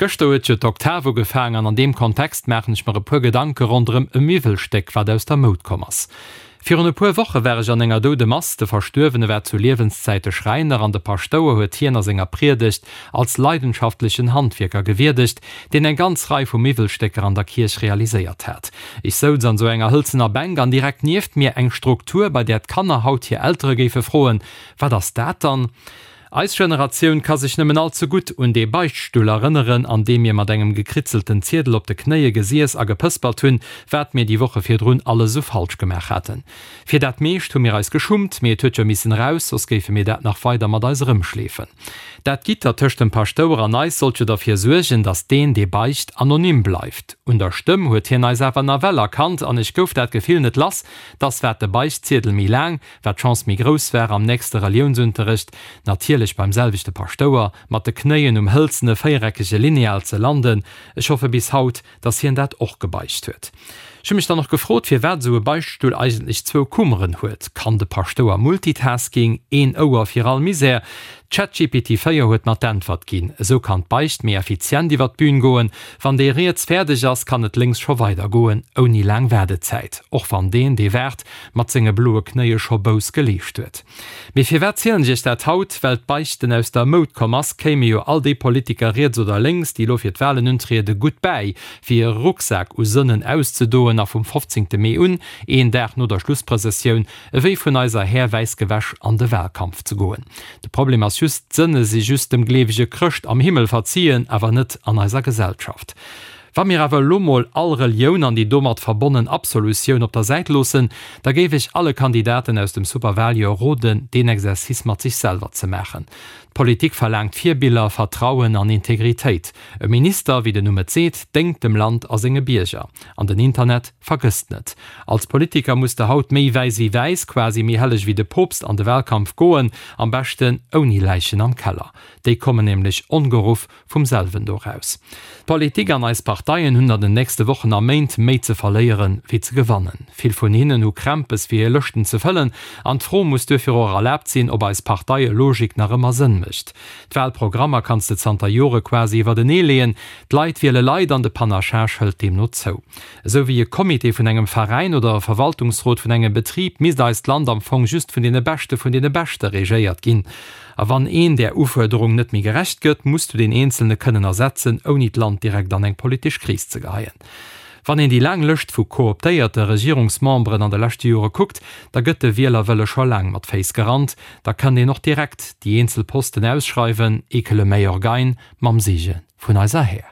Gëschter huet jo d'Oktav ugefaang an an deem Kontext maachen ech mer e puer Gedanke ronderëm e Miwwelstéck, wat aus der Moud komm ass. Virun e puer Woche war ech an enger Doudemass, de Verstuerwene war zu Liewenszäite Schräiner an de Paschtouer huet hien a senger Priedegt als leidenschaftlechen Handwierker gewierdegt, deen eng ganz Rei vu Miwwelstécker an der Kierch realiséiert hat. Ech souz an sou enger hëlzener Bänk an direkt nieft mir eng Struktur, bei där d'Kanner haut hir Eltere géife froen, Wat ass dat dann? Eis Generatioun ka sech nëmmen all ze gutt un dee Beichtstull erënneren, an deem mir mat engem gekritzelten Ziedel op de Knéie gesiess a gepëspert hunn, wat mir déi Woche virdrun alles esou falsch gemaach haten. Fir dat meescht hu mir eis geschummt, mee et huet jo missen eraus, soss géife mir dat nach weider mat eis erëmschleefen. Dat Gitter tëscht dem Paschtouer an eis sollt jo derfir suergen, datt deen, dee beicht, anonym bleift. Un der Stëmm huet hien eis awer nawell erkannt an ech gouf dat Gefill net lass, datt wat de Beichtziedel méi laang, Wat d'Chance méi grouss war, am nächste Reliounsunterrecht, natierlech beim selwechte Paschtouer, mat de Knéien um hëlzene véiereckege Lineal ze landen. Ech hoffe bis haut, dass hien dat och gebeicht huet. Ech hu mech dann och gefrot, firwat esou e Beichtstull eigentlech zwou Kummeren huet. Kann de Paschtouer Multitasking, een Ouer fir all Misär? ChatGPT 4 huet mer d'Äntwert ginn, Esou kann d'Beicht méi effizient iwwer d'Bün goen. Wann dee riets fäerdeg ass, kann et lénks scho weidergoen, ouni laang Waardezäit. Och wann deen, dee waart, mat senge bloe Knéie scho Bouss geleescht huet. Mee firwat zielen ech iech dat haut? Well d'Beichten aus der Moud komm ass, kéime jo all déi Politiker riets oder lénks, déi elo fir d'Wahlen untriede, gutt bäi, fir hire Rucksak u Sënnen auszedoen a vum 15. Mee un, een Dag no der Schlussprëssessioun, ewéi vun eiser Här wäiss gewäsch an de Wahlkampf ze goen. De Problem ass just, d'Sënne si just dem gleewege Chrëscht am Himmel verziehen, awer net an eiser Gesellschaft. Wa mir awer elo mol all Relioun an déi domat verbonnen Absolutioun op der Säit loossen, da géif ech alle Kandidaten aus dem Superwahljoer roden, deen Exercice mat sech selwer ze maachen. D'Politik verlaangt Virbiller, Vertrauen an Integritéit. E Minister, wéi den Numm et seet, déngt dem Land a senge Bierger. An den Internet vergësst net. Als Politiker muss de haut méi wäiss wéi wäiss, quasi méi helleg wéi de Poopst an de Wahlkampf goen, am beschten ouni Läichen am Keller. Déi kommen nämlech ongeruff vum selwen do raus. D'Politik an eis Parteien hunn an den nächste Wochen a Méint méi ze verléieren, wéi ze gewannen. Vill vun hinnen hu Krämpes fir hir Lëschten ze fëllen an d'Fro muss duerfir och erlaabt sinn, ob eis Parteie-Logik nach ëmmer Sënn mécht. D'Wahlprogrammer kanns de zanter Jore quasi iwwertenee leeën. D'Leit wiele Leit an de Panachage hëlt deemno zou. Esou wéi e Comité vun engem Veräin oder e Verwaltungsrot vun engem Betrib misst eist Land am Fong just vun deene Beschte vun deene Beschte regéiert ginn. A wann een där Ufuerderung net méi gerecht gëtt, muss du deen Eenzelne kënnen ersetzen, ouni d'Land direkt an eng politesch Kris ze geheien. Wann een déi laang Lëscht vu kooptéierte Regierungsmemberen an de leschte Jore kuckt, da gëtt de Wielerwëlle scho laang mat Féiss gerannt. Da kënnt een och direkt déi eenzel Posten ausschreiwen, et que le meilleur gagne, mam Seege vun eiser Här.